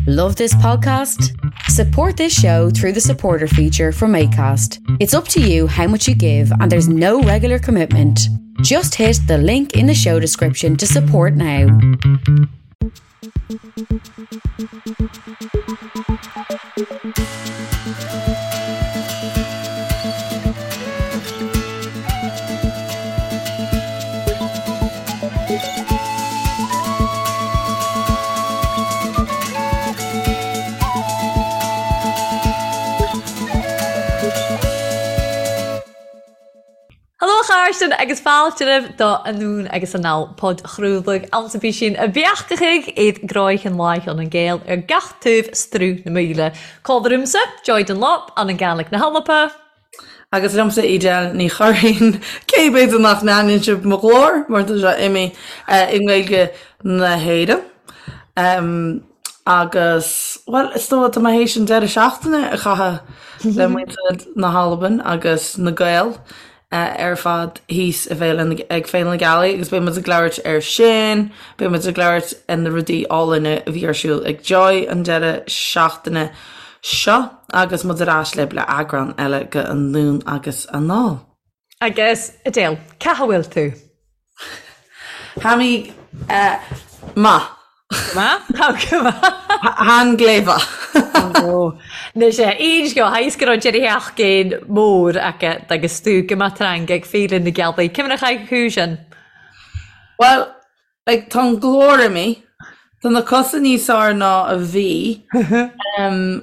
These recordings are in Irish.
Love this podcast? Support this show through the supporter feature from ACAST. It's up to you how much you give, and there's no regular commitment. Just hit the link in the show description to support now. Haló a chairde agus fáilte romhaibh do Anonn agus Anall, podchraoladh ansa bí sin a bheachtachaigh iad gráigheann láicheann an Gael ar gach taobh struth na míle. Cá bhfuair Joy Dunlop an an Gaelic na hAlba. Agus liomsa Edel Ní Churraoin, cé b'fhéidir nach n-aithníonn sibh mo ghlór mar tá sé imithe i nGaeilge na hÉireann. Agus, bhuel, is dóigh tá mé théis an deireadh seachtaine a chaitheamh le muintir na hAlban agus na Gaeil. ar fad thíos i bhFéile na, ag Féile na Gealaí agus beidh muid ag labhairt air sin, beidh muid ag labhairt ar na rudaí álainn a bhí ar siúl ag Joy an deireadh seachtaine seo agus muid ar ais libh le eagrán eile de Anonn agus Anall. Agus, Edel, cá bhfuil tú? Tha mi math. Math? Tha gu math. Than glè mhath. Anois aon scéal, tha fhios go raibh deireadh sheachtain mór agat agus tú go maith tarraing ag Féile na Gealaí. Cé mar a chaith thú sin? Bhuel, like, tá an glór imithe, tá na cosa níos fearr ná a bhí,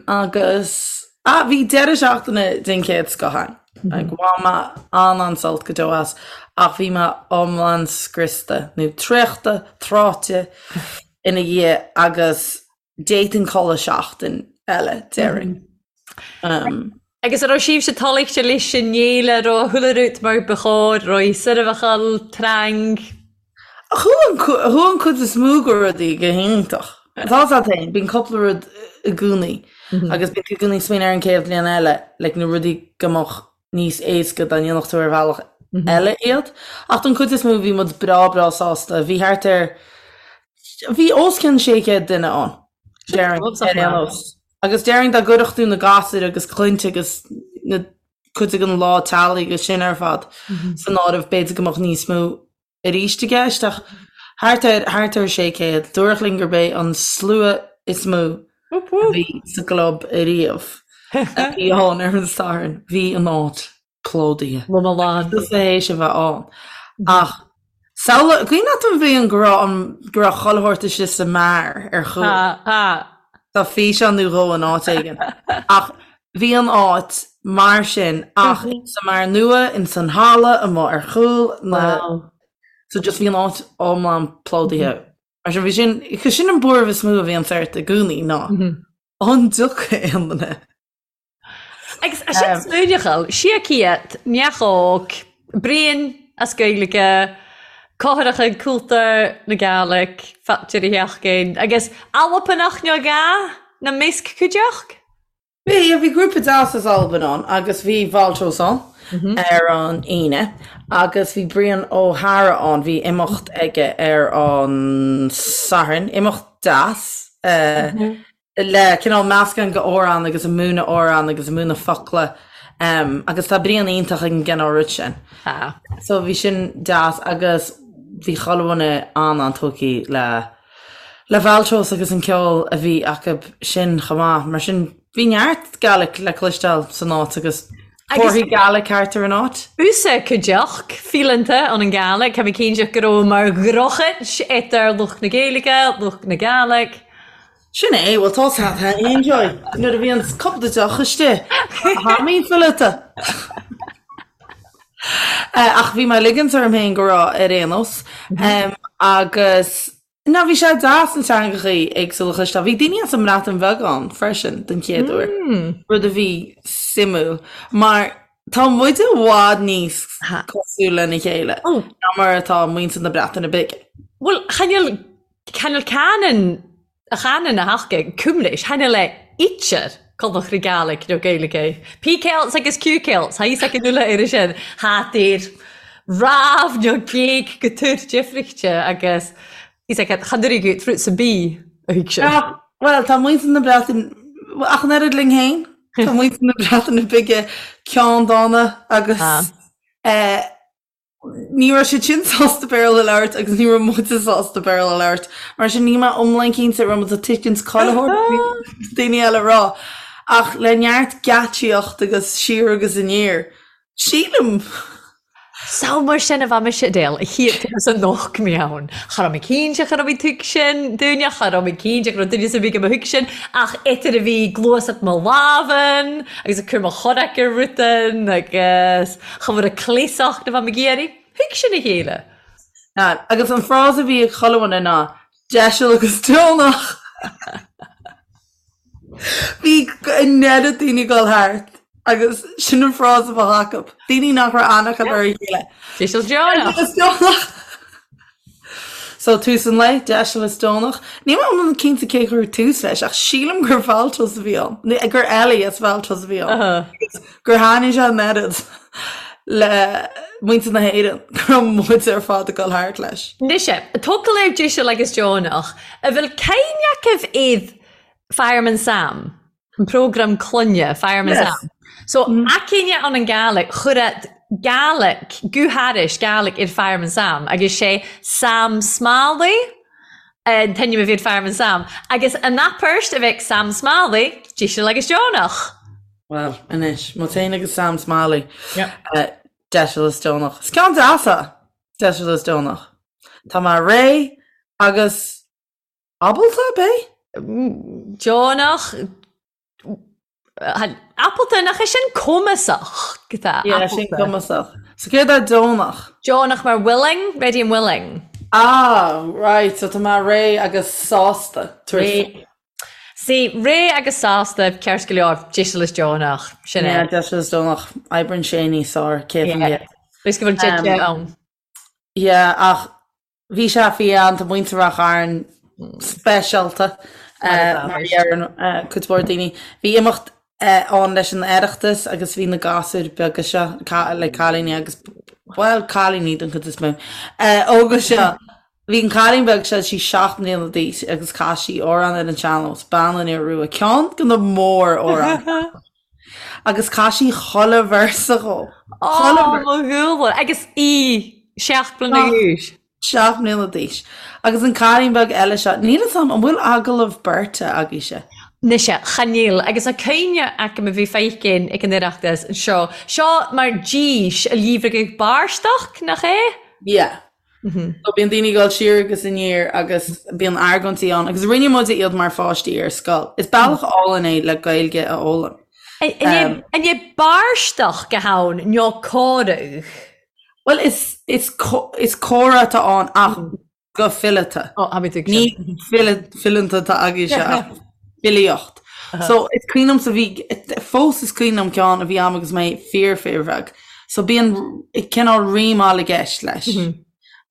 agus, ah, bhí deireadh seachtaine den chéad scoth ann. Like, bhain mé an-an-sult go deo as, ach bhí mé iomlán scriosta, nó traochta, tráite ina dhiaidh agus d'fhéadfainn codladh seachtain eile, déarfainn. Um. Agus an raibh sibhse toillte leis an fhéile, an raibh chuile rud mar ba chóir, raibh seirbheáil, tarraing? Chuaigh an cuid is mó de rudaí go hiontach. Tá a fhios agat féin, bíonn cúpla rud i gcónaí agus bíonn tú i gcónaí ag smaoineamh ar an chéad bhliain eile, like na rudaí go mbeadh níos éasca dá ndéanfadh tú ar bhealach eile iad. Ach don chuid is mó bhí muid breá breá sásta. Bhí thart ar, bhí os cionn 600 duine ann, déarfainn, ar aon nós. Agus déarfainn dá gcuirfeadh tú na gasúir agus clainne agus na cuid den lá teaghlaigh agus sin ar fad san áireamh, b'fhéidir go mbeadh níos mó arís i gceist, ach thart ar, thart ar 600. Dúradh linn gurb é an slua is mó a bhí sa gclub ariamh a bhí ann ar an Satharn. Bhí an áit plódaithe. Lom lán. Tusa théis a bheith ann. Ach samhlaigh, cuimhin leat an bhliain go raibh an, go raibh chuile shórt istigh sa mbeár ar chúl? Tá, tá. Tá físeán nó dhó in áit éigin. Ach bhí an áit mar sin ach sa mbeár nua, ins an halla, amuigh ar chúl na, Wow. so just bhí an áit iomlán plódaithe. Mar sin bhí sin, cos sin an buaireamh is mó a bhíonn ort i gcónaí ná an dtiocfaidh aon duine. Agus sin smaoineachal, 600, neach óg, Brian as Gaeilge, Cóthaireacha Cúltar na Gàidhlig, Fáilte Sheachtain, agus Albanach nó gá na measc cuideachd? Bhí, bhí grúpa deas as Albain ann agus bhí Valtros ann ar an Aoine agus bhí Brian Ó hEára ann, bhí imeacht aige ar an Satharn, imeacht deas. le cineál meascán de amhrán agus ag múineadh amhrán agus ag múineadh focla agus tá Brian iontach ag an gcineál rud sin. Tá. So bhí sin deas agus bhí chuile dhuine an-an-tógtha le le Valtros agus an ceol a bhí acu sin chomh maith. Mar sin bhí neart Gaelic le cloisteáil san áit agus comharthaí Gaelic thart ar an áit. Usa cuideachd fíleanta ann an Gàidhlig, Tá mé cinnte go raibh mar dhrochaid idir lucht na Gaeilge, lucht na Gàidhlig. Sin é, bhuel tá a fhios agat Joy, nuair a bhíonn cúpla deoch istigh, tha mi fileata. Ach bhí mé ag ligint orm féin go raibh ar aon nós. Agus ná bhí sé deas na teangachaí éagsúla a chloisteáil. Bhí daoine as an mBreatain Bheag ann freisin den chéad uair, rud a bhí suimiúil mar tá muid i bhfad níos cosúil lena chéile ná mar atá muintir na Breataine Bige. Bhuel, chan eil chan eil canann a chanann a thaca cumlis, chan eil e idir Cobach na Gàidhlig nó Gaeilge. P Celts agus Q Celts, tha fhios againn uile air sin, tha idir rámh nó géag go túr difrichte agus fhios agat chan uirig fruits and bee a thuig sin. Bhuel, tá muintir na Breataine, ach an oiread linn féin, tá muintir na Breataine Bige ceanndána agus eh, ní raibh siad sin sásta Béarla a labhairt agus ní raibh muide sásta Béarla a labhairt. Mar sin níl mé iomlán cinnte raibh muid ag tuiscint chuile shórt daoine eile a rá. Ach le neart geáitsíocht agus siar agus aniar, sílim! So mar sin a bheadh mise Adele, a chíocht agus a nocht mé ann. Cha raibh mé cinnte cha raibh mé tuigsin dúinne, cha raibh mé cinnte go raibh duine sa bhig a mo thuigsin, ach idir a bhí gluaiseacht mo lámhan agus ag cur mo chorraic ar rutan agus cha bhfuair a cleasacht a bheadh mé ag iarraidh, thuig sin a chéile. Agus an frása a bhí ag chuile dhuine ná, deiseal agus deonach! Bhí an oiread daoine ag dul thart agus sin an frása a bheadh acu. Daoine nach raibh aithne acu ar a chéile. Deiseal is deonach! So tús an lae, deiseal is deonach. Níl mé iomlán cinnte cé chuir tús leis ach sílim gur Valtos a bhí ann. Gur Ellie as Valtos a bhí ann. Agus gur thaitnigh sé an oiread le muintir na hÉireann go raibh muid ar fad ag dul thart leis. Anois, focal ar deiseal agus deonach, a bhfuil cuimhne agaibh iad Fireman Sam, an prógram clainne, Fireman yes. Sam. So mm. aicíne an an Gaelic chuir Gaelic, guthairis Gaelic ar Fireman Sam agus sé Sam Smalley an t-ainm a bhí ar Fireman Sam agus an apairt a bheadh Sam Smalley deiseal agus deonach. Well, anois, muid féin agus Sam Smalley. Yeah. Uh, deiseal is deonach. Is ceann deas é, deiseal is deonach. Tá mé réidh agus Ábalta, ab é? Deonach, Ábalta, nach é sin cumasach? Yeah, sin cumasach. So céard é deonach? Deonach mar willing, ready and willing. Ah, right, so tá mé réidh agus sásta. Réidh. See, réidh agus sásta, ceart go leor, deiseal is deonach, sin é. Yeah, deiseal is deonach. Oibríonn sé níos fearr, 100%. Is go bhfuil deite ann. Yeah, ach Bhí sé fiáin, tá muintir Ráth Chairn speisialta mar a deireann cuid mhór daoine. Bhí imeacht ann leis an Oireachtas agus bhí na gasúir beaga seo, le cailíní agus, bhuel, cailíní den chuid is mó, óga seo. Bhí an cailín beag seo, sí 7 mbliana d'aois agus chas sí amhrán ar an sean-nós, Bean an Iora Rua, ceann de na mór-amhráin. Agus chas sí chuile véarsa dhó. Chuile véarsa. Mo dhúla. Agus í 7 mbliana d'aois. 7 mbliana d'aois. Agus an cailín beag eile seo, níl fhios a'm, an bhfuil agallamh beirte agaibhse? Mise, chan eil. Agus a cuimhne agam a bhí feicin ag an Oireachtas anseo. Seo mar dís a líomhragadh bairsteach, nach é? Yeah. So bíonn daoine ag dul siar agus aniar agus bíonn argóintí ann agus rinne muide iad mar pháistí ar scoil. Is bealach álainn é le Gaeilge a fhoghlaim. An é bairsteach go hann nó comhradh? Bhuel is is is comhrá atá ann ach go fileata. Ní fileanta atá agaibhse ach filíocht. So is cuimhin liomsa bhí, fós is cuimhin liom ceann a bhí a'm agus mé fíor fíor bheag. So bíonn cineál rímeáil i gceist leis.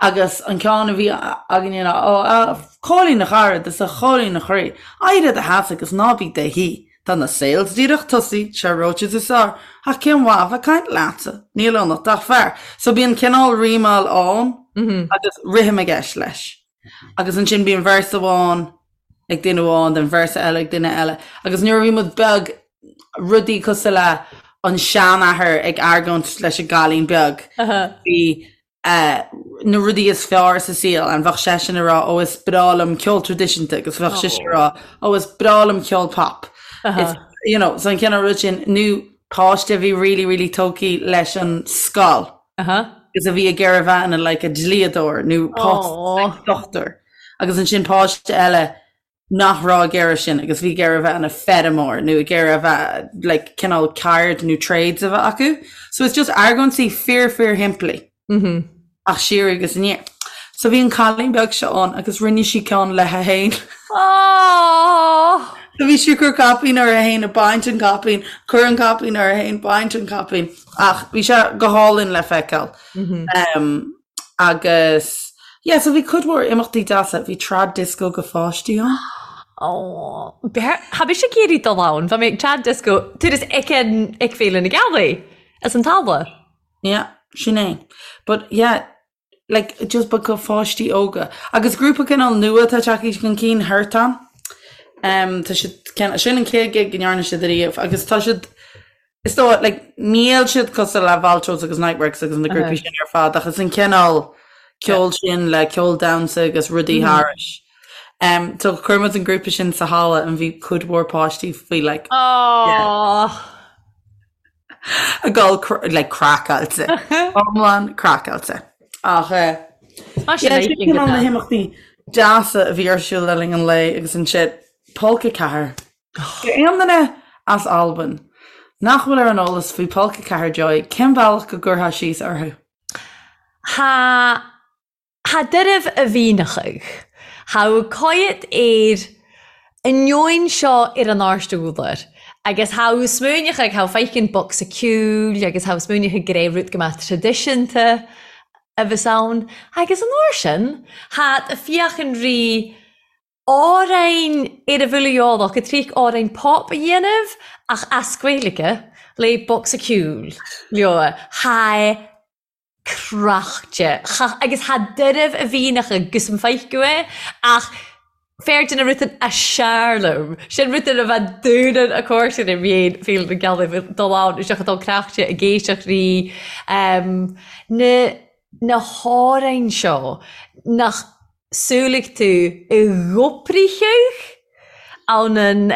Agus an ceann a bhí againne ná, Ó, a Chóilín a chara, is a Chóilín a chroí, éirigh i do sheasamh agus ná bí 'do shuí. Tá na sales díreach tosaithe, sé reoite is fearr, ach cén mhaith a bheith ag caint leatsa, níl ionat ach fear. So bíonn cineál rímeáil ann agus rithim i gceist leis. Agus ansin bíonn véarsa amháin ag duine amháin, then véarsa eile ag duine eile. Agus nuair a bhí muid beag, rudaí cosúil le an seanathair ag argóint leis an gcailín beag, bhí na rudaí is fearr sa saol and bheadh seisean ag rá ó is breá liom ceol traidisiúnta agus bheadh sise ag rá ó is breá liom ceol pop. It's, you know, so an cineál rud sin, nó páiste a bhí really really tógtha leis an scoil. Agus a bhí ag iarraidh a bheith ina like a dlíodóir nó páiste dochtúir. Agus ansin páiste eile nach raibh ag iarraidh sin agus bhí ag iarraidh a bheith ina feirmeoir nó ag iarraidh a bheith like cineál ceird nó trades a bheith acu. So it's just argóintí fíor fíor shimplí. Ach siar agus aniar. So bhí an cailín beag seo ann agus rinne sí ceann léi féin. Aww! So bhí sí ag cur caipín uirthi féin, ag baint an caipín, cur an caipín uirthi féin, baint an caipín. Ach bhí sé go hálainn le feiceáil. Um, agus yeah, so bhí cuid mhór imeachtaí deasa, bhí trad disco go pháistí ann. Ó, Tha mise ag iarraidh dul ann, Bha mi ag trad disco, turas ag an ag Féile na Gealaí, as an talamh. Yeah, sin é. But yeah, like just but go pháistí óga. Agus grúpa cineál nua atá tagtha chun cinn, Hirtan. Tá siad, sin an chéad gig go ndearna siad ariamh agus tá siad, is dóigh, like, níl siad cosúil le Valtros agus Niteworks agus na grúpaí sin ar fad ach is an cineál ceol sin le ceol damhsa agus rudaí thairis. Um, so chuir muid an grúpa sin sa halla and bhí cuid mhór páistí faoi like, Oh. ag dul like craiceáilte. Iomlán craiceáilte. Ach eh, Mar sin yeah, é sin go cineál na deas. himeachtaí deasa a bhí ar siúl le linn an lae agus ansin Polca 4. Aon duine as Albain nach bhfuil ar an eolas faoi Polca 4 Joy, cén bealach go gcuirfeá síos orthu? Tha Tha doirbh a mhìneachadh. Tha coimhead air an neoin seo air an àirst ùdar, agus tha smaoineachadh tha feiceann bocsa ceoil agus tha smaoineachadh gur é rud go mbeadh traidisiúnta a bheas ann, agus an uair sin tha a' fiachain ri àrainn air a bhfuil a eòlach ag triac àrainn pop a dhéanamh ach as Gaeilge le bocsa ceoil leo. Tha craichte. Cha, agus tha doirbh a mhìneachadh gus am feiceadh é, ach fearr na rutan a seàrlam. Sin rutan a bheith dúnan a còmhairsinn im dhéin Féile na Gealaigh bheith dul ann isteach ag dul craichte ag éisteacht ri na na hàrainn seo nach samhlaigh tú i gcopricheadh ann an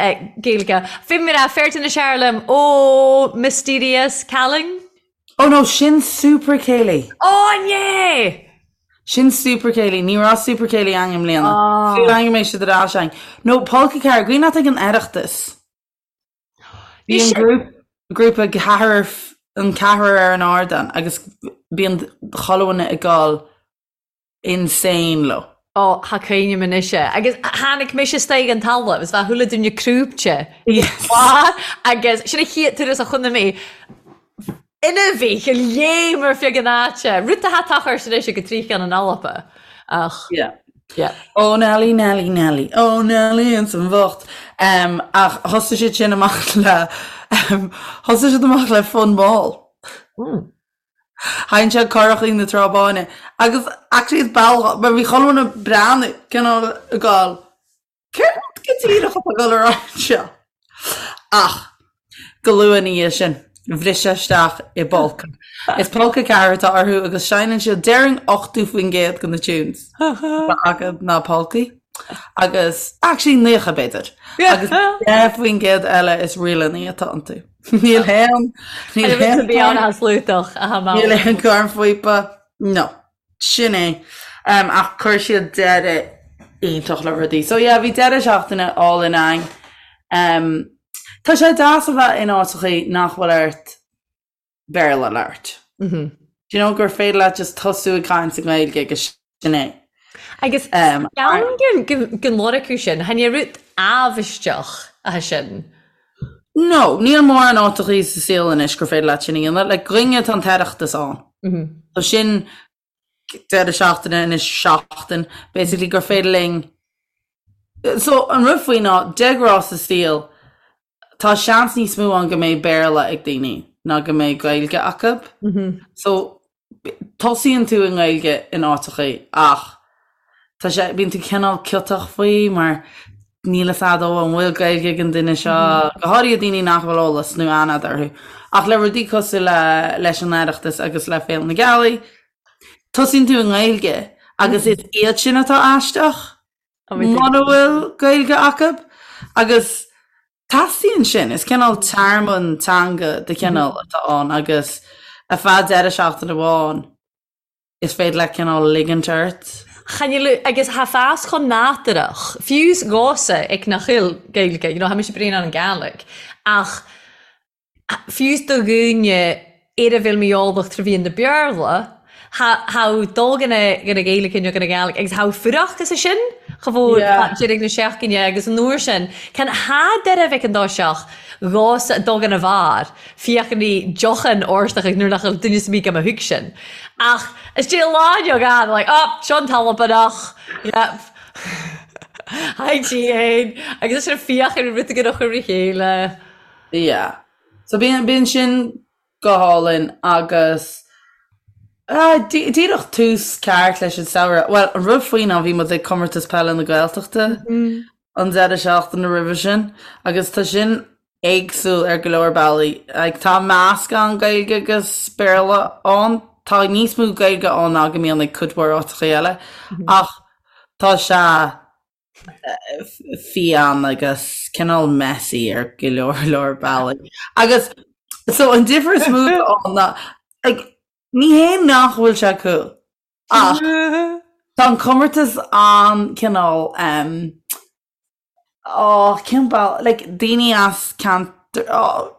Gaeilge. Bhí mé a fearr na seàrlam ó Mysterious Calling. Oh no, sin Super Céilí. Ó yeah! Sin Super Céilí, ní raibh Super Céilí againn i mbliana. Súil agam go mbeidh siad ar ais againn. No, Polca 4, cuimhin leat ag an Oireachtas. Bhí an grúpa ceathrar, an ceathrar ar an ardán agus bíonn chuile dhuine ag dul insane leo. Ó, tha cuimhneam anois é. Agus tháinig mise istoigh an talamh is bheadh chuile duine crúibte. Yes. Agus sin an chéad turas a chonaic mé ina bhí go léim ar feadh an áite. Rud atá tochairt anois ag trícheann an Alpa. Ach. Yeah. Yeah. Ó Nelly, Nelly, Nelly, ó Nelly ins an bhocht. Um, ach thosaigh siad sin amach le um, thosaigh siad amach le Fonn Mall. Mm. Sheinn siad Currachí na Trá Báine agus actually is bealach mar bhí chuile dhuine ag breathnú cineál ag gabháil céard go díreach atá ag dul ar aghaidh anseo? Ach go luath ina dhiaidh sin bhris isteach i bpolca. Is Polca 4 atá orthu agus seinneann siad déarfainn 80% de na tunes atá acu ná polcaí agus actually 90 b'fhéidir agus 10% eile is ríleanna atá iontu. Níl aon níl aon Bhí an slútach a Níl aon cornphíopa. No. Sin é. Um, ach chuir siad deireadh iontach le rudaí. So yeah, bhí deireadh seachtaine álainn againn. Um, tá sé deas a bheith in áiteachaí nach bhfuil ort Béarla a labhairt. Mm -hmm. Do you know gur féidir leat just tosú ag caint i nGaeilge agus sin é. Agus ceann den lorg sin, chan é rud amhaisteach é sin. No, níl mórán áiteachaí sa saol anois gur féidir leat sin a dhéanamh. Like, dhúinne tá an tOireachtas ann. So sin deireadh seachtaine anois seachtain, basically gur féidir linn So an rud faoi ná, de ghnáth sa saol, tá seans níos mó ann go mbeidh Béarla ag daoine ná go mbeidh Gaeilge acu. So tosaíonn tú i nGaeilge in áiteachaí ach tá sé, bíonn tú cineál ciotach faoi mar níl fhios a'd ó an bhfuil Gaeilge ag an duine seo, go háirithe daoine nach bhfuil eolas nó aithne a'd orthu. Ach le rudaí cosúil le leis an Oireachtas agus le Féile na Gealaí, tosaíonn tú i nGaeilge agus is iad sin atá aisteach mura bhfuil Gaeilge acu agus Teastaíonn sin. Is cineál tearmann teanga de chineál atá ann agus ar feadh deireadh seachtaine amháin is féidir leat cineál ligint ort. Chan fhuil, agus tha fas chomh nàdurach, fiù 's dhomhsa ag nach eil Gaeilge, you know, tha mise bréan ann an Gàidhlig, ach fiù 's do dhuine ar a bhfuil mí-eolach trò mheadhan na Beurla, tha dol dhan a Ghaeilge nó dhan a Ghàidhlig agus tha fuireachd as sin cha mhór deireadh na seachtaine agus an uair sin can tha deireadh bheith an dá seach dhomhsa dul dhan a bharr fiachan í deochan órstach agus nuair nach bhfuil duine sa mí go mba thug sin ach is dé lá inniu gan like oh seo an t-Albanach yep Hi G agus sin fiachan rud go chur a chéile. Yeah. So bíonn bíonn sin go hálainn agus díreach tús ceart leis an samhradh. Bhuel, an rud faoi ná bhí muid ag Comórtas Peile na Gaeltachta. an deireadh seachtaine roimhe sin agus tá sin éagsúil ar go leor bealaí. Like, tá meascán Gaeilge agus Béarla ann, tá níos mó Gaeilge ann ná go mbíonn ag cuid mhór áiteacha eile, ach tá sé fiáin agus cineál messy ar go leor leor bealaí. Agus so an difear is mó ann ná like, ní hé nach bhfuil sé cool ach tá an comórtas an-cineál um, oh, cén bealach like, daoine as ceantar oh,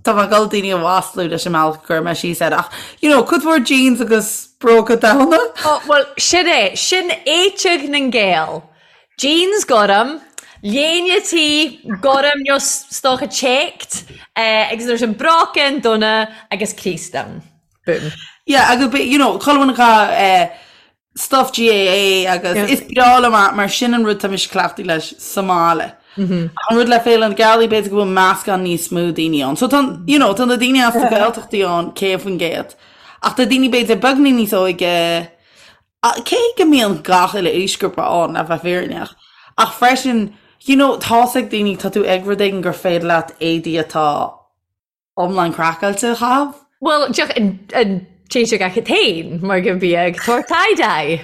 Tá mé ag dul daoine a mhaslú leis an mbealach a gcuir mé síos air ach you know, cuid mhór jeans agus bróga donn. Oh, bhuel, sin é, sin éiteag na nGael. Jeans gorm, léine tí gorm nó 's dócha checked, eh, agus nuair sin bróicín donna agus crios donn. Boom. Yeah, agus be- you know, chuile dhuine acu eh, stuff GAA agus is breá liom é mar sin an rud tá mise cleachtaithe leis sa mbaile. Ach an rud le Féile na Gealaí b'fhéidir go bhfuil meascán níos mó daoine ann. So tá you know, tá na daoine as na Gaeltachtaí ann 100%. Ach tá daoine b'fhéidir beagán níos óige cé go mbíonn gach uile aoisghrúpa ann le bheith fírinneach. Ach freisin, you know, tá's ag daoine tá tú ag rud éigin gur féidir leat éadaí atá iomlán craiceáilte a chaitheamh. Bhuel, deoch an téiteach acu féin mar go mbíodh tabhair tie-dye.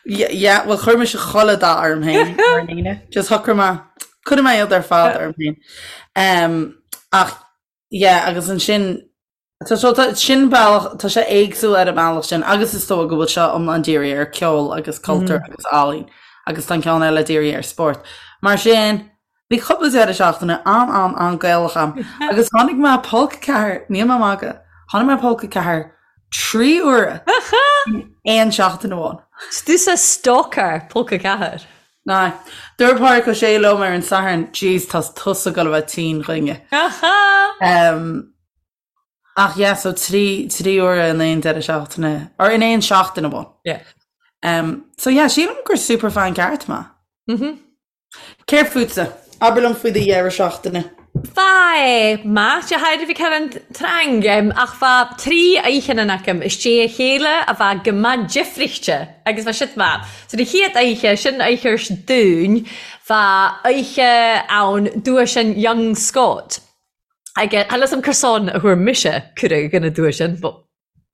Yeah, bhuel chuir mise chuile dath orm féin ar an Aoine. Just shocraigh mé, cuirfidh mé iad ar fad orm féin. Um, ach, yeah, agus ansin, tá so tá sin bealach, tá sé éagsúil ar an mbealach sin agus is dóigh go bhfuil seo iomlán dírithe ar ceol agus cultúr agus ealaín agus tá an ceann eile dírithe ar spórt. Mar sin, Bhí cúpla deireadh seachtaine an-an-an-Gaelach a'm agus tháinig mé Polc 4, níl mé ag magadh, tháinig mé Polc 4 trí huaire in aon seachtain amháin. 'S tusa stalker Polc 4. Aye. Dúirt Pádraic Ó Sé liom ar an Satharn, Jeez, tá tusa ag dul a bheith tinn chugainne. Ach yeah, so trí, trí huaire in aon deireadh seachtaine, or in aon seachtain amháin. Yeah. So yeah, sílim gur superfan ceart mé. Céard fútsa? Abair liom faoi do dheireadh seachtaine. Bha math de thaidhreamh ag an trang, ach bha tri oidhcheann agam istigh a chéile a bha go math difrichte agus bha siad math. So na chéad oidhche, sin oidhche 's dúinn, bha oidhche ann duais an Young Scot. Agus tha 'fhios a'm cur san a fuair mise cuireadh dhan a duais sin, but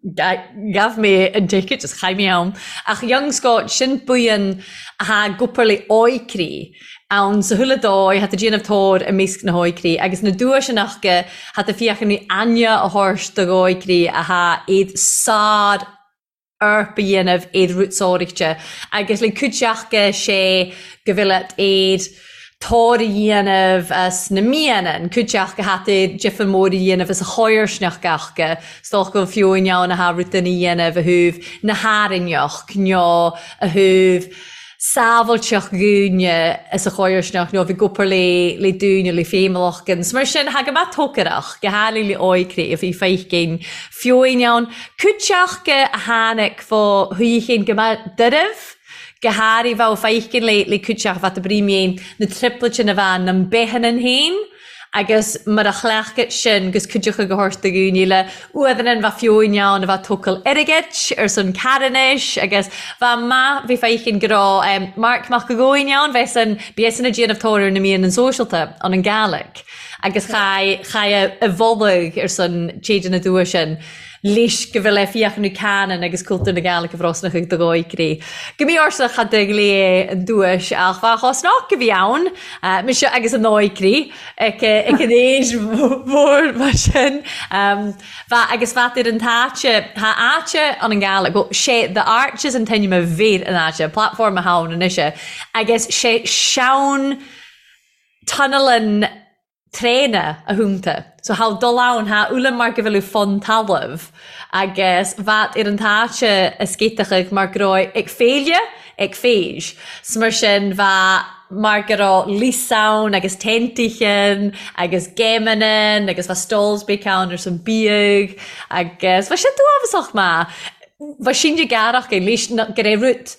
Ghabh mé an ticket is chaith mé ann. Ach Young Scot, sin buíon athá ag obair le óigrí ann sa chuile dóigh, thá tú déanamh tóir i measc na hóigrí agus na duaiseanna acu, thá tú féachaint le aithne a thabhairt do óigrí athá iad sár orp a dhéanamh iad rútsóireachta agus le cuid acu sé go bhfuil iad tóir a dhéanamh as na mianna, cuid acu thá difear mór a dhéanamh as a chomharsanacht acu, 's dócha go bhfuil fiú in ann athá rud a dhéanamh a thaobh na hArainneach nó a thaobh sábháilteacht dhaoine as a chomharsanacht nó bhí ag obair le le daoine le féimheach agus mar sin thá go maith tócaireach, go háirithe le óigrí a bhí feicinn fiú in ann cuid acu a tháinig fó shuíochán go maith doirbh. Go háirithe bheadh feicinn le le cuid acu bheadh brí na triplets a bheith na mbeitheanna féin agus mar a chleachtadh sin gus cuid acu go thabhairt do dhaoine le uaireanna bheadh fiú in ann a bheith tógáil airgid ar son carthanais agus bheadh maith bhí feicinn go raibh Marc Mac a' Ghabhainn ann bheith san bhí san ag déanamh tóir ar na mian an sóisialta an an Gàidhlig agus chaith chaith a mholadh ar son téide na dua sin. leis go bhfuil fiach nó canann agus cultúr na Gàidhlig a bhrosnach ag do dhóigrí. Go mbí orsa cha de ghlé an duais ach bha chosnach a bhí ann, mise agus an dóigrí ag an aois mhór mar sin. Bha agus bhat ar an t-áite, tha áite an an Gàidhlig, bhuel, sé The Arches an t-ainm a bhir an áite, platform a tha ann anois, agus sé seann tunnel traenach a thúnta. So tha dul ann, tha uilleam mar go bhfuil fon talamh agus bhat ar an t-áite a scéiteachadh mar go raibh ag féile ag féis. 'S mar sin bha mar go raibh lios ann agus teintichean agus géimeannan agus bha stalls beic ann ar son biadh agus bha sé duámhasach maith. Bha sin de gearrach é leis go raibh rud.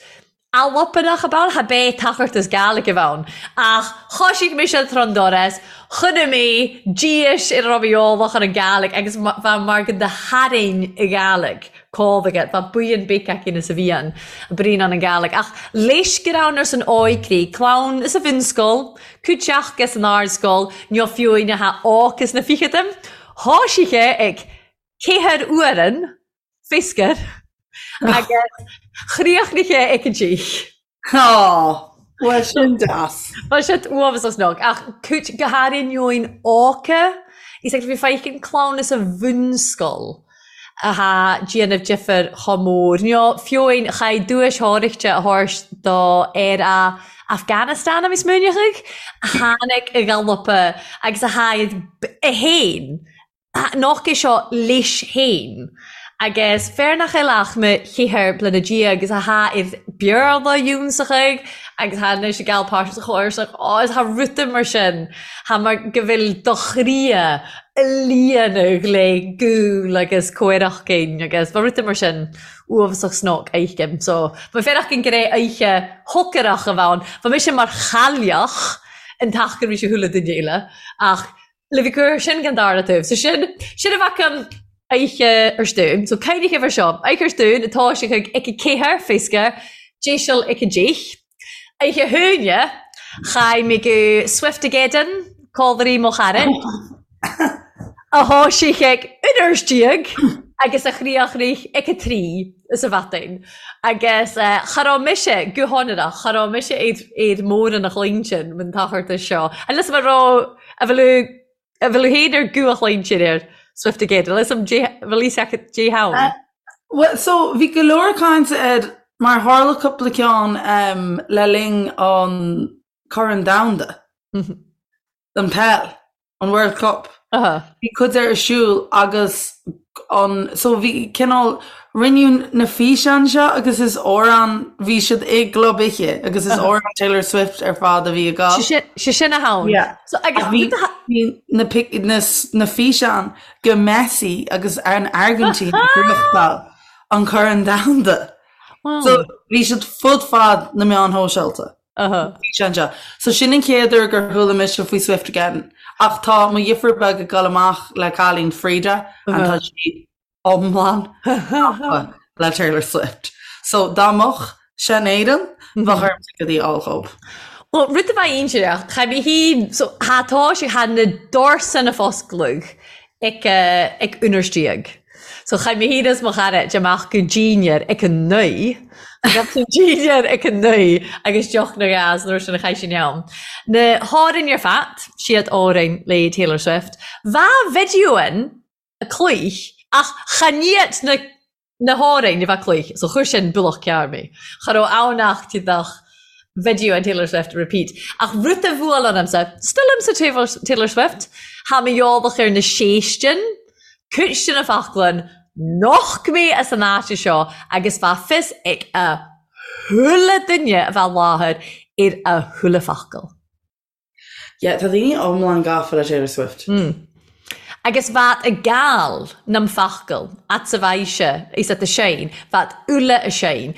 Albanach ab ann, cha b'é tachairt as Gàidhlig a bh' ann. Ach thoisigh mise tron doras, chonaic mé d'éis ar a raibh mé eolach ar an Ghàidhlig agus bha mar go do tharraing a Ghàidhlig cómhaige, bha buíon beic aicinn is a bhí ann, bruíon ann an Ghàidhlig. Ach leis go raibh ar san óigrí, clann is a bhunscoil, cúiteach is an ardscoil, neo fiúin a tha óc is na ficheadaim, thoisigh sé ag ceathair uairean, Fisker, agus chríochnaigh sé ag an dteach. Á, bhuel sin deas. Bhuel sin uathbhas as nog, ach cúit go háirithe óca, is ag bhí feicim clann is a bhunscoil atá déanamh difear chomh mór. Nó fiúin chaith duais thóraíochta a thabhairt do fhear a Afghanistan a bhí smaoineachaidh, a tháinig i gcalapa agus a tháinig a fhéin Nach é seo leis féin agus fear nach eil ach mo cheathair bliana déag agus athá ar Beurla ionnsachaidh agus thá anois ag gabhail páirt sa chomharsach ó is thá ruda mar sin thá mar go bhfuil do chroidhe a líonadh le gúl agus comhaireachtainn agus bha ruda mar sin uathbhasach snoc fheicim so bha fearach an gré oidhche shocarach a bh' ann bha mise mar chailleach an t-achar bhí sé chuile duine eile ach Le bhí cur sin gan dara taobh. So sin, sin a bheadh an oidhche ar stún. So caoinigh air seo. Oidhche ar stún atá sé chuig ic a céathair, féasca, déiseal ic a déich. Oidhche húine, chaith mé go Swiftageddon, cómhairí mo chara, a thoisigh chuig uair déag agus a chríochnaigh ic a trí sa mhaidin. Agus cha raibh mise, go hionrach, cha raibh mise ar, ar mórán a chloigne sin, an t-achar seo. Unless mar raibh A bhfuil a bhfuil féin ar gcú a chloigne ar Swiftageddon? Leis an bhfuil fhios agat dé hann? Well, so bhí go leor cainte air mar tharla cúpla ceann um, le linn an Corn Domhanda, an peil, an World Cup. Bhí cuid ar siúl agus an so bhí cineál rinneadh na físeáin seo agus is amhrán bhí siad i gclub oíche agus is amhrán Taylor Swift ar fad a bhí ag gabháil. Sé sin a hann. Yeah. So agus bhí bhí na pic na na físeáin go Messi agus an Airgintín ag gnóthachtáil an Corn Domhanda. Wow. So bhí siad fud fad na meáin shóisialta. Físeán seo. So sin an chéad uair gur chuala mise faoi Swiftageddon. Ach tá mo dheirfiúr beag ag dul amach le cailín Frida and tá sí iomlán gafa le Taylor Swift. So dá mbeadh sé in Éirinn, bheadh orm ticéadaí a fháil dhób. Well, rud a bheidh inseach, cha bhí hí, so tha tá sé, tha na doirse na foscladh ag ag unnars déag. So chaith mé féin is mo chara de amach go dinnéar ag a naoi. Gabh tú dinnéar ag a naoi agus deoch na gas nuair sin a chaith sin ann. Na hÁrainn ar fad, siad Árainn le Taylor Swift. Bha video in a cluich ach chan iad na na hÁrainn a bha cluich so chuir sin bualach cearr mé. Cha raibh ann ach tíodach video an Taylor Swift repeat. Ach rud a bhuail ionamsa, still imsa Taylor Swift, tha mi eòlach air na sèistean, cuid de na foclainn noch mé as an áit seo agus bha fios ag a chuile duine a bha i láthair ar a chuile focal. Yeah, tá daoine iomlán gafa le Taylor Swift. Mm. Agus bheat a gal nam focal at sa bhaise is at a sein, bheat uile a sein.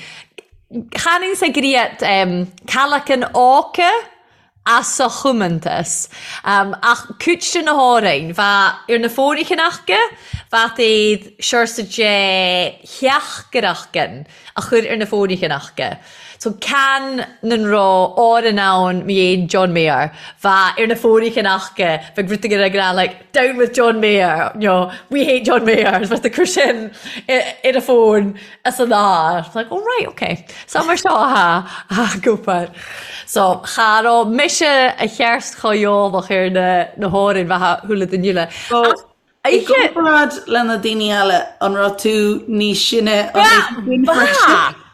Chanann sa griat um, calacan áca as a chomantas. Um, ach cuid de na hÁrainn, bha ar na fóirichin aca, bheat iad siorsa de theachaireachgan a chur ar na fóirichin aca. So can nan raibh Árainn ann mi dhéin John Mayer, bha ar na fóirichin aca, bheadh rud éigin ag rá like down with John Mayer, you know, we hate John Mayer, is bheadh ag cur sin ar a fón as an ár. It's like, oh right, okay. So mar seo atá a gcúpar. So cha raibh mise a cheart chomh eolach ar na na hÁrainn bheatha shúile den uile. So, I gcomparáid le na daoine eile, an raibh tú níos sine an oíche sin freisin?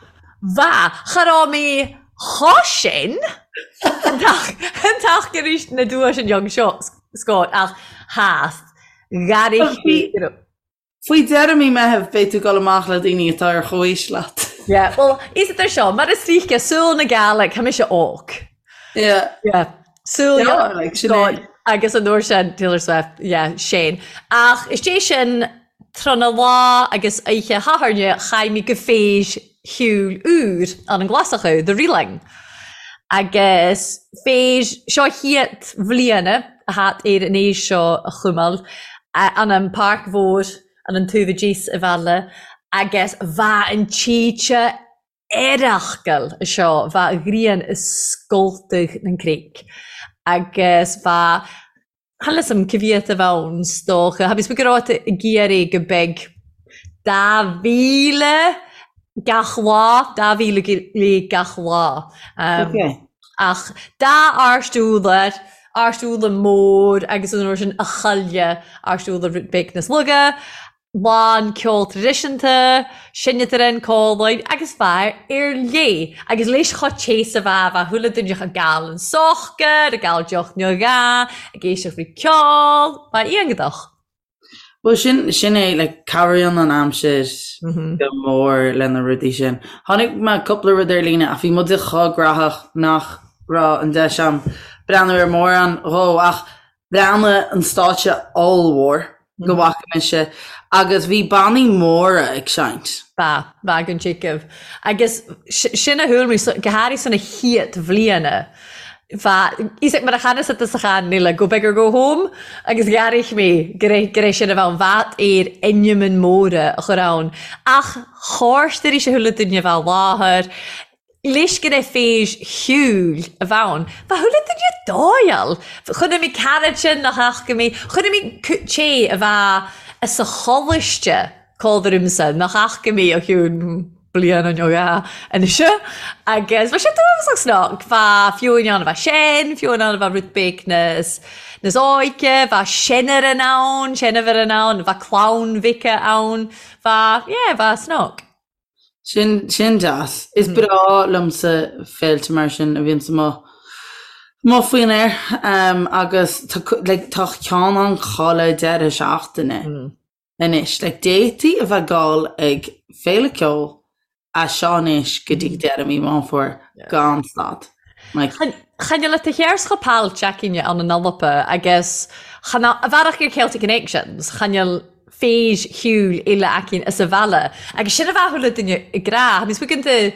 Bha, cha raibh mé chomh sin an t-ach arís na duais an young seo, Scott, ach theas, ghairigh sí. Faoi dheireadh mí Meitheamh beidh tú ag dul amach le daoine atá ar chomhaois leat. Yeah, well, is it seo, mar is ríce, súil na Gàidhlig, tha mise óg. Yeah. Yeah. Súil yeah, like, sin é. Agus an uair sin, Taylor Swift, yeah, sin. Ach is é sin tráthnóna lá agus oíche Shathairne, chaith mé go féis. cheoil úr ann an Glasachú, The Reeling. Agus fèis seo chiat bhliana a that air an fheis seo a chumail ann an Pàrc Mhòr ann an taobh a-dìos a' bhaile agus bha an tìte airachgal seo, bha a' ghrian a' scoltadh nan creig agus bha Chan eil 'fhios a'm ca mhiat a bh' ann 's dòcha. Tha mi 's go raibh ag iarraidh go beag 2,000 gach lá, 2,000 go leith gach lá. Ach dà àrst ùdar, àrst ùdar mòr agus an uair sin a chailleadh àrst ùdar rud beag nas lugha. lán ceol traidisiúnta, seinntear an còmhlann agus fear ar léith agus leis cho te 's a bha, bha chuile duine ag gabhail an socair, ag gabhail deoch nó dhà, ag éisteacht le ceol, bha iongadach. Bhuel sin, sin é, like, cabhraíonn an aimsir go mór le na rudaí sin. Chonaic mé cúpla rud ar líne ach bhí muide chomh graitheach nach raibh an deis a'm breathnú ar mórán dhó ach Bhreathnaigh an stáitse ollmhór go bhfaca mise agus bhí bannaí móra ag seinnt. Ba, bha gun tigeamh. Agus sin a chuala mé, go hàraidh san a chiat bhliana. Bha, fhios ag mar a chanasa tusa chan eile, go big or go home, agus dh'airich mé gur é, gur é sin a bheadh ann. Bha air ainmean móra a chur ann. Ach chòrd arís a chuala duine a bheith i láthair. Leis go raibh fèis cheoil a bh' ann. Bha chuile duine a' dòigheil. Chonaic mé carad sin nach fhaca mé. Chonaic mé té a bha sa choláiste còmhla riumsa nach fhaca mé ó chionn bliana nó dhà anois. Agus bha sé dubhasach snoc. Bha fiúin ann a bha sean, fiúin ann a bha rud beag nas nas óige, bha seinneran ann, seinnmhar ann, bha clann mhic ann. Bha, yeah, bha snoc. Sin, sin deas. Is breá liomsa féilte mar sin a bhíonns amuigh, amuigh faoin aer agus tá, like, tá ceann ann chuile deireadh seachtaine anois. Like, d'fhéadfaí a bheith ag gabháil ag féile ceoil as seo anois go dtí deireadh mí Meán Fómhair gan stad. Like. Chan eil a shears cho pailt againne ann an Alba agus chan a bhearach ar Celtic Connections, chan eil fèis cheoil eile againn as a bhaile. Agus sin a bheadh chuile duine ag rá. Tha mi smaoineamh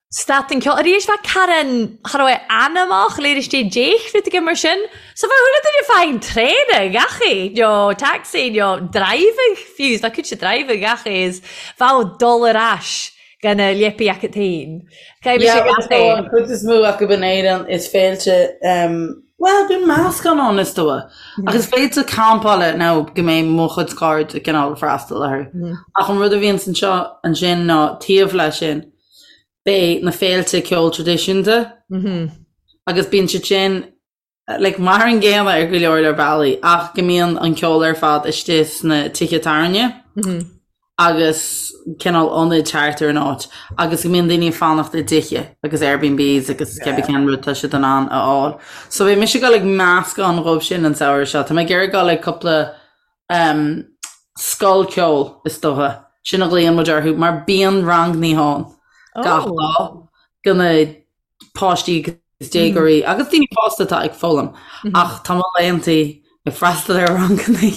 stad an ceol. Arís bheadh Karen, cha raibh anamach léir istigh déich rud éigin mar sin. So bheadh chuile duine fáin traein gach é, nó taxi, nó driving fiú, bheadh cúinse driving gach é is bheadh dul ar ais gan a leipi acu féin. Caithfidh mise gach é. An chuid is mó acu in Éirinn is féilte, bhuel, bíonn meascán ann is dóigh. Ach is féilte campála nó go mbeidh mo chuid cairde cineál ag freastal orthu. Ach an rud a bhíonns anseo ansin ná taobh leis sin, beidh na féilte ceoil traidisiúnta agus bíonn siad sin like, mar an gcéanna ar go leor leor bealaí, ach go mbíonn an ceol ar fad istigh sna tithe tábhairne agus cineál ionaid thart ar an áit agus go mbíonn daoine ag fanacht i dtithe agus Airbnbs agus cibé cén rud tá siad in ann a fháil. So beidh mise ag dul ag meascán dhóibh sin an samhradh seo. Tá mé ag iarraidh dul ag cúpla um, scoil ceoil is dócha. Sin a ghlaonn muid orthu mar bíonn rangannaí ann gach lá do na páistí agus déagóirí agus daoine fásta atá ag foghlaim ach tá mo laethantaí ag freastal ar rangannaí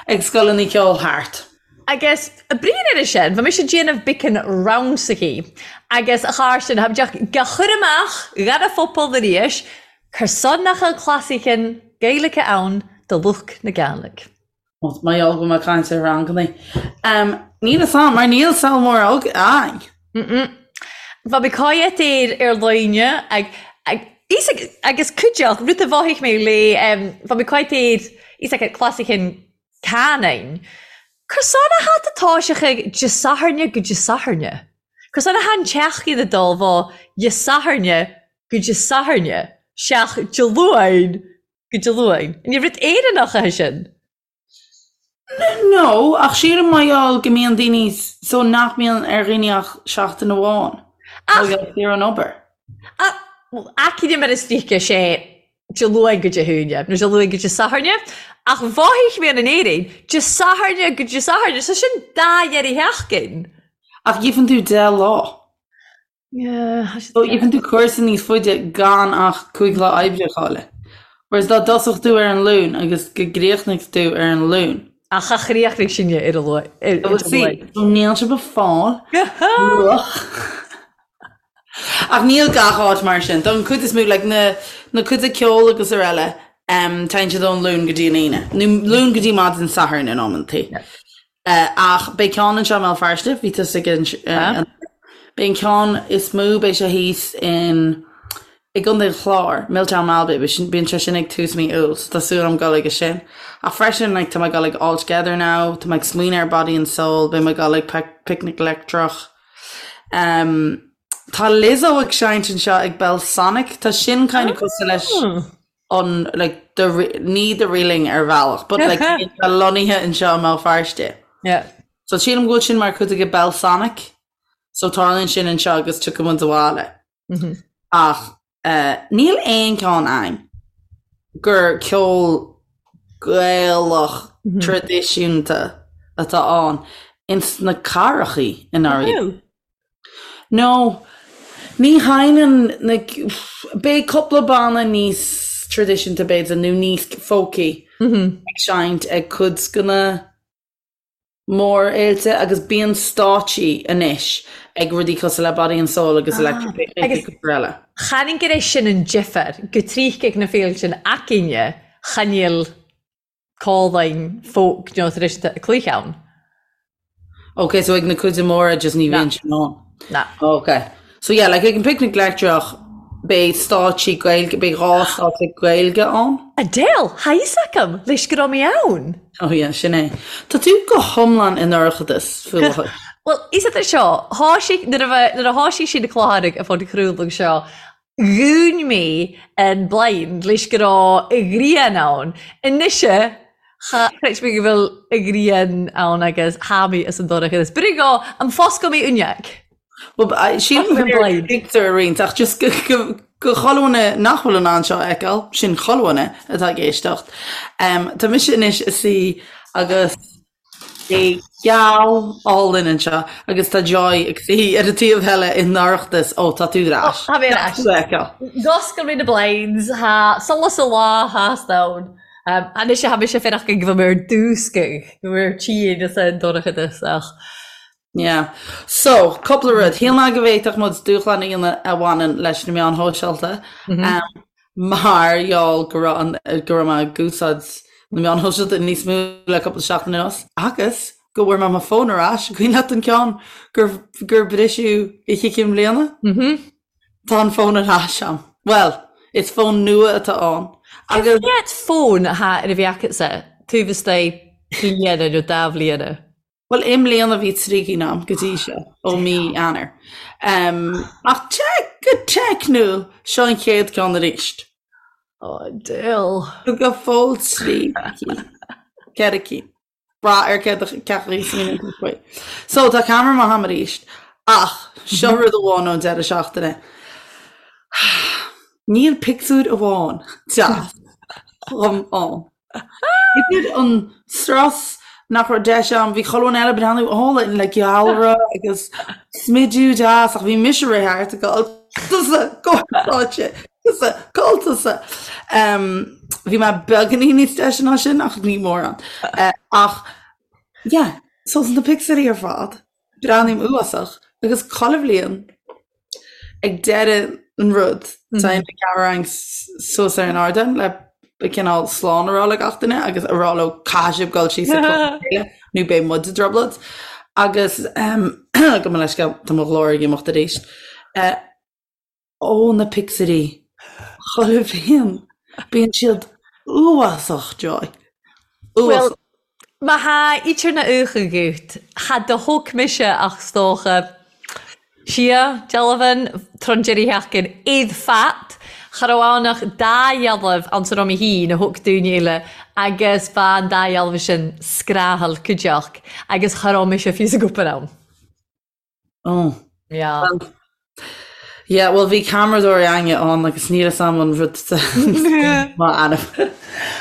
ag scoileanna ceoil thart. Agus bruíon air sin, bha mise ag déanamh beacan rannsachaí agus a chàirdean, tha mi ga chur amach dhan a phobal airís, cur son nach eil clasaichean Gaeilge ann do lucht na Gàidhlig. Mar gheall go bhfuil mé ag caint ar rangannaí. Níl fhios a'm, mar níl saol mór againn. Bha mi còidheat air air loinne ag agus cuideachd, rud a mhothaich mé le bha mi còidheat air fhios agat clasaichean canainn. Cur son a tha a' tòiseachadh Dè Sathairne go Dè Sathairne. Cur son a tha an tseachdain a dol bho Dè Sathairne go Dè Sathairne, seach Dè Luain Go Dé Luain. An rud Éireannach é sin? No, ach sílim mar gheall go mbíonn daoine so nach mbíonn ar dhaoine ach seachtain amháin. Ach ar an obair. Aicíd mar is dócha sé Dé Luain go Dé hAoine, nó Dé Luain go Dé Sathairne, ach mhothaigh mé in Éirinn, Dé Sathairne go Dé Sathairne, so sin dá dheireadh sheachtain. Ach gheibheann tú 10 lá. So gheibheann tú cúrsa níos faide gan ach 5 lá oibre a chailleadh. Whereas dá dtosódh tú ar an Luan agus go gcríochnaigh tú ar an Luan. Ach cha chríochnaigh sinne ar a luath. So níl sibh ag fáil luach. Ach níl gach áit mar sin. Don chuid is mó, like na na cuid de ceol agus araile, um, téann siad ón Luan go dtí an Aoine. Nó Luan go dtí maidin Sathairn in amantaí. Uh, ach beidh ceann anseo i mBéal Feirste, bhí tusa ag an, uh, an Beidh an ceann is mó, beidh sé thíos in i gContae an Chláir, Miltown Malbay, bíonn sé sin ag tús mí Iúil, so tá súil agam dul aige sin. Ach freisin, like, tá mé ag dul ag All Together Now, tá mé ag smaoineamh ar Body and Soul, beidh mé ag dul ag Picnic Leictreach. Um, tá Lizzo ag seinnt anseo ag Belsonic, tá sin kind of cosúil leis an, like, the, ní The Reeling ar bhealach, but like, tá lonnaithe anseo i mBéal Feirste. Yeah. So sílim go bhfuil sin mar chuid de Belsonic, so tarlaíonn sin anseo agus tiocfaidh muid abhaile. Ach níl aon cheann ann gur ceol Gaelach traidisiúnta atá ann ins na cathrachaí i ndáiríre. No, ní sheinneann na, beidh cúpla banna níos traidisiúnta b'fhéidir nó níos folky ag seinnt ag cuid de na mórfhéilte agus bíonn stáitsí anois ag rudaí cosúil le Body and Soul agus Electric Picnic agus cúpla eile. Chan gur é sin an difear, go tríth ag na féilte sin againne, chan fhuil codlainn folk nó traidisiúnta ag cluiche ann. Ok, so ag na cuid móra just ní bhíonn sin ann. Na. Ok. So yeah, like ag an Picnic Leictreach beidh stáitsí Gaeilge, beidh dhá stáitse Gaeilge ann. Adele, Tha fhios agam, leis go raibh mé ann. Oh yeah, sin é. Tá tú go hiomlán i ndorchadas faoi láthair. Bhuel, is idir seo, thoisigh, nuair a bheith, nuair a thoisigh sí na cláraigh a phodchraoladh seo, dhún mé an blind leis go raibh a ghrian ann. Anois, cha chreid mé go bhfuil a ghrian ann agus tha mi as an dorchadas. B'fhéidir go, am foscadh mé uineag. Bhuel, sílim gur pictiúr a roinnt ach just go chuile dhuine nach bhfuil in ann seo a fheiceáil, sin chuile dhuine atá ag éisteacht. Tá mise anois i suí agus é geal álainn anseo agus tá Joy ag suí ar an taobh eile i ndorchadas. Ó, tá tú ar ais. Tá mé ar ais. D'oscail mé na blinds, tha solas a' la theas ann. Anois tha mise faireachán go bhfuil mé ar dúscadh, go bhfuil mé ar tinn as an dorchadas ach Yeah. So, cúpla rud. Shíl mé go bhféadfadh muid dúshlán a dhéanamh a bhaineann leis na meáin shóisialta mar gheall go raibh an, go raibh mé ag úsáid na meáin shóisialta níos mó le cúpla seachtain anuas agus go bhfuair mé mo fón ar ais. Cuimhin leat an ceann gur, gur briseadh oíche Chinn Bliana? Tá an fón ar ais a'm. Bhuel, is fón nua atá ann agus. Cén fón atá ar a bheith agatsa taobh istigh bliana nó dá bhliana? Bhuel, i mbliana bhí trí cinn a'm go dtí seo, ó mí Eanáir. Ach go teicniúil, seo an chéad ceann arís. Ó, diabhal. Go fóill trí cinn. Ceithre cinn. Brath ar cé chaoi a smaoiníonn tú faoi. So, tá ceamara maith a'm arís. Ach, seo rud amháin ón deireadh seachtaine. Níl pictiúr amháin deas dhom ann. Idir an strus nach raibh deis a'm, bhí chuile dhuine eile ag breathnú álainn le gealra agus smidiú deas ach bhí mise ag rith thart ag gabháil tusa, go stáitse, tusa, cá tusa. Bhí mé beagáinín níos deise ná sin ach ní mórán. Ach yeah, so na pictiúirí ar fad, Breathnaím uafásach agus chuile bhliain ag deireadh an rud téann an ceamara suas ar an ardán le cineál slán a rá le gach duine agus a rá leo caithfidh sibh dul síos ag clog na chéile nó beidh muid i dtrioblóid agus gabh mo leithscéal tá mo ghlór ag imeacht arís. Ó na pictiúirí chuile bhliain bíonn siad uafásach Joy. Bhuel, má tha idir na ucha gut, cha do thóg mise ach 's dócha sia, dealbhan, tron deiridh sheachtain, iad fat, cha raibh ann ach dá dhealbh ann sa raibh mé féin a thóg daoine eile agus bha an dá dhealbh sin scrathail cuideachd agus cha raibh mise fiú sa gcúpar ann. Oh. Yeah. Well, yeah, well bhí ceamaradóir againne ann agus níl fhios a'm an rud má ainm.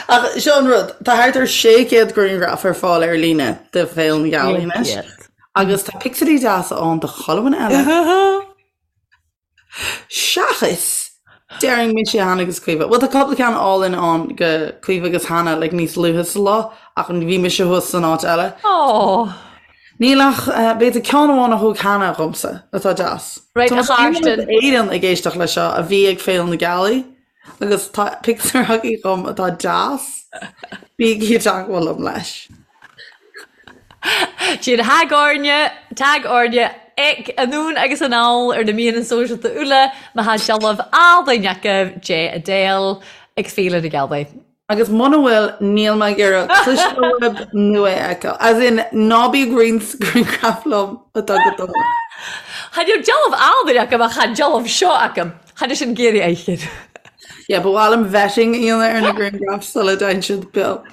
Ach seo an rud, tá thart ar 600 grianghraf ar fáil ar líne de Féile na Gealaí anois. Agus tá pictiúirí deasa ann de chuile dhuine eile. Seachas! Déarfainn mise, Hannah agus Caoimhe. Bhuel tá cúpla ceann álainn ann go Caoimhe agus Hannah like níos luaithe sa lá ach bhí mise thuas san áit eile. Aww. Níl ach b'fhéidir ceann amháin a thóg Hannah dhomsa atá deas. Right, a Chairsten. Éireann ag éisteacht leis seo a bhí ag Féile na Gealaí agus tá pictiúr agaibh dhom atá deas. Bígí i dteagmháil liom leis. Sin tag orainne, tag orainne ag anonn agus anall ar na meadhanan sóisealta uile má tha dealbh àlainn agaibh de Adele ag Féile na Gealaí. Agus muna bhfuil, níl mé ag iarraidh cloisteáil uaibh nó é a fheiceáil. As in, ná bí ag roinnt grianghraf liom atá go dona. Chan eil dealbh àlainn agam ach tha dealbh seo agam. Chan eil sin ag iarraidh a fheiceáil. Yeah, ba mhaith liom vetting a dhéanamh ar na grianghraif sula dtéann siad beo.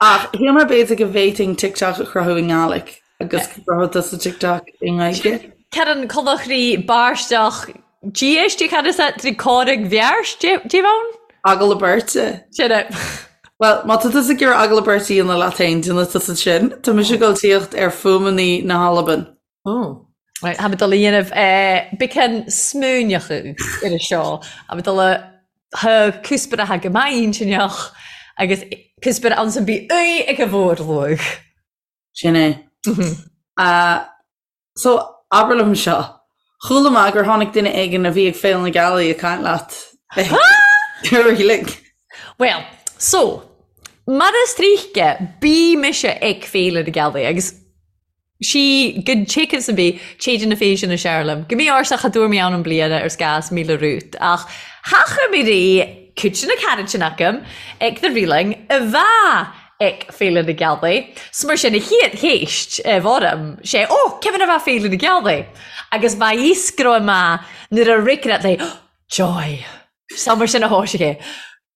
Ach shíl mé b'fhéidir go bhféadfainn TikTok a chruthú i nGàidhlig agus go gcruthódh tusa TikTok i nGaeilge. Cearann conachraí báisteach Dia cad is é trí córaigh bheart díobh ann? Agallamh beirte. Sin é. Bhuel, má tá tusa ag iarraidh agallamh beirte a dhéanamh leat féin, déanfaidh tusa sin. Tá mise ag dul tíocht ar fuaimeanna na hAlban. Ó. Right, tha mi dol a dhéanamh beagan smaoineachadh air seo. Tha mi dol a tha cuspair atha go maith intinneach agus cuspair ann san bith uaidh ag a mhórluach. Sin é. So, abair liom seo. Chuala mé gur tháinig duine éigin a bhí ag Féile na Gealaí ag caint leat ar Reeling. Bhuel, so, mar is tríche, bí mise ag Féile na Gealaí agus sí gun téacs an bí téide na féise na searlam. Go mí ársa cha dúr mé ann an bliana ar scás míle rút ach thacha mé rí cúite na carad sin agam ag the Reeling a bha ag Féile na Gealaí. 'S mar sin a chéad chéist a bhorm sé ó cé a bha Féile na Gealaí agus bha fhios go raibh mé nuair a ricreat léi Joy. Sa mar sin a thoisigh é.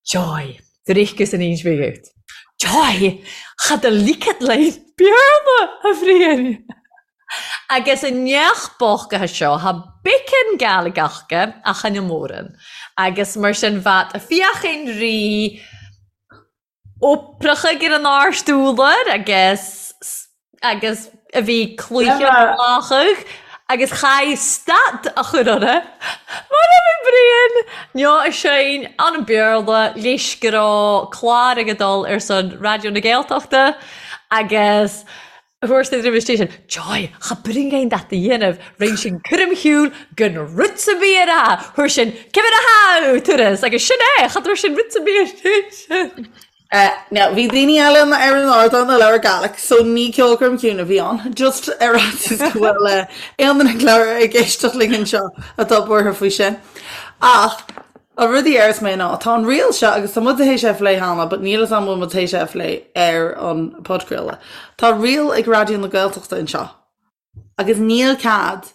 Joy. Drichgus an inch big out. Joy! Cha do ligead linn Béarla, a Bhriain! Agus an neach bochtaithe seo, tha beagan Gàidhlig aca ach chan eil mòran. Agus mar sin bhead a fiachain ri oprachaidh ar an ard-úlar agus agus a bhí cluiche lachadh agus chaith stad a chur orthu mar a bhí Brian neo a sheinn an Béarla leis go raibh clár ag dul ar son Raidió na Gaeltachta agus thabhairt na roimhe sin Joy, cha bring aon dat a dhéanamh, rinn sin cúram shiúil gan rud sa bhír a, thabhair sin cibir a hau turas agus sin é, cha dtabhair sin rud sa bhír sin. Now, bhí daoine eile ar an ardán a labhair Gaelic, so ní ceolchoirm chiúin a bhí ann, just ar fhaitíos go bhfuil aon duine ag labhair ag éisteacht linn anseo atá buartha faoi sin. Ach an rud a deireas mé ná, tá an riail seo, agus tá muid théis é a phlé cheana, but níl fhios a'm bhfuil muid théis é a phlé ar an podchraoladh. Tá riail ag Raidió na Gaeltachta anseo, agus níl cead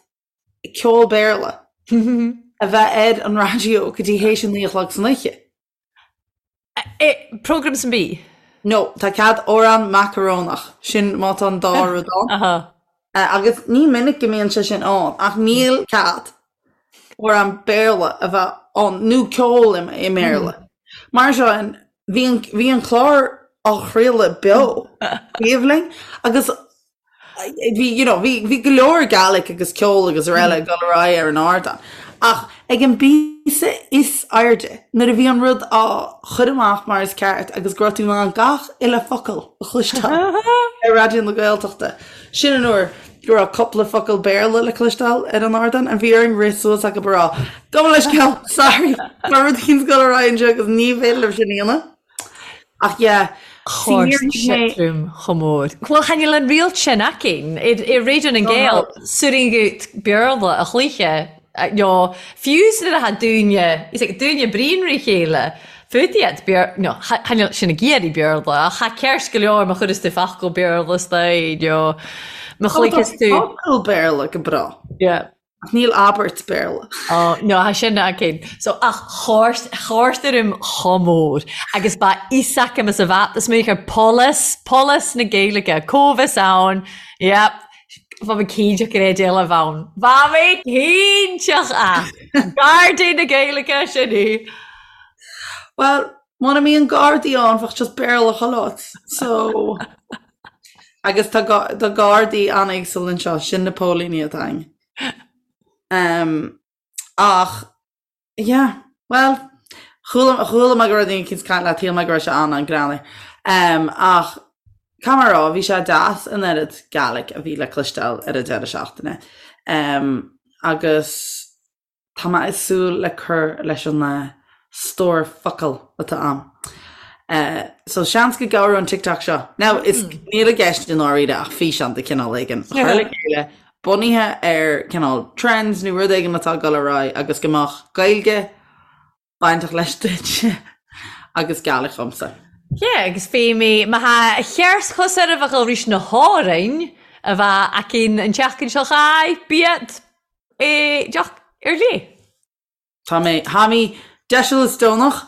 ceol Béarla a bheith ar an raidió go dtí théis a naoi a chlog san oíche. Program san bí? No, tá cead amhrán macarónach, sin má tá an dá rud ann. Agus ní minic go mbíonn sé sin ann, ach níl cead amhrán Béarla a bheith ann, nó ceol i mBéarla. Mar seo, bhí an, bhí an clár á chraoladh beo, taobh linn, agus Bhí, you know, bhí, bhí go leor Gaelic agus ceol agus araile ag dul ar aghaidh ar an ardán. Ach ag an bpíosa is airde, nuair a bhí an rud á chur amach mar is ceart agus go raibh tú in ann gach uile focal a chloisteáil ar Raidió na Gaeltachta, sin an uair go raibh cúpla focal Béarla le cloisteáil ar an ardán and bhí orainn rith suas acu a rá, Gabh mo leithscéal, sorry, tá rud éicint ag dul ar aghaidh anseo agus ní féidir libh sin a dhéanamh. Ach yeah, see Chóir níor thuig mé. trom chomh mór. Bhuel, chan eil an riail sin againn i Raidió nan Gael, suiringeadh Béarla a chluiche, nó fiú nuair atá daoine, is ag daoine bríon ri chéile, fút iad Béar, nó chan eil sin ag iarraidh Béarla, ach tha ceart go leor má chuireas tú focal Béarla istoigh, nó má chluicheas tú. Focal Béarla go breá. Yeah. Ach níl abairt Béarla. Ó, no, tha sin againn. So, ach chóirt, chóirt orm chomh mór. Agus ba fhios agam is a bheat is mé ar polis, polis na Gaeilge, comhfhios ann, yep, bha mi cinnteach gur é d'éileamh ann. Bha mi cinnteach a! Gardaí na Gaeilge, sin í. Bhuel, muna mbíonn gardaí ann, bheadh just Béarla chuile áit. So, agus tá tá gardaí an-éagsúil anseo, sin na póilíní atá againn. Um, ach, yeah. Bhuel, chuala chuala mé go raibh daoine eicínt ag caint leat, shíl mé go raibh sé an-an-greannmhar. Ach caithfidh mé a rá, bhí sé deas an oiread Gaelic a bhí le cloisteáil ar an deireadh seachtaine. Agus tá mé ag súil le cur leis an stór focal atá a'm. So seans go gcabhróidh an TikTok seo. Now, is níl i gceist i ndáiríre ach físeán de chineál éigin a chur le chéile bunaithe ar cineál trends nó rud éigin atá ag dul ar aghaidh agus go mbeadh Gaeilge bainteach leis duit agus Gaelic dhomsa. Yeah, agus fé mé má tha cheart chos ar a bheadh rís na hÁrainn a bheith aicinn an tseachtain seo chaith biad é deoch ar léith. Tá mé, tha mi deiseal is deonach.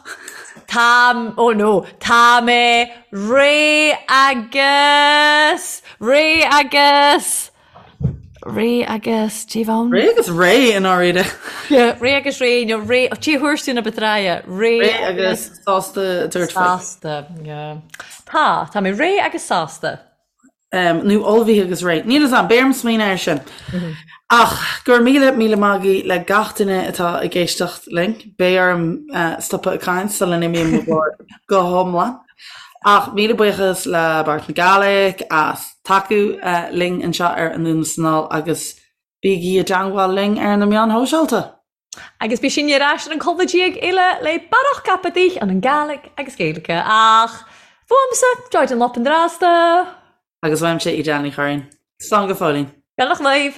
Tá, oh no, tá mé réidh agus, réidh agus, réidh agus, dé bhonn? Réidh agus réidh i ndáiríre. Yeah, réidh agus réidh, nó réidh, oh, dé thuairisc na Betraia, réidh Réidh agus sásta tabhairt faoi. Sásta, yeah. Tá, tá mé réidh agus sásta. Nó ullmhaithe agus réidh. Níl fhios a'm, beidh orm smaoineamh air sin. Ach go raibh míle, míle maith agaibh le gach duine atá ag éisteacht linn. Beidh orm stopadh ag caint sula n-imím mo ghlór go hiomlán. Ach míle buíochas le Bòrd na Gàidhlig as tacú linn anseo ar Anonn is Anall agus bígí i dteangmháil linn ar na meáin shóisialta! Agus beidh sinn ar ais ar an colbha déag eile le barrach caipitich ann an Gàidhlig agus Gaeilge ach fuaimse, Joy Dunlop an Drasta. Agus uaimse, Edel Ní Churraoin. Slán go fóillín. Beannacht leibh.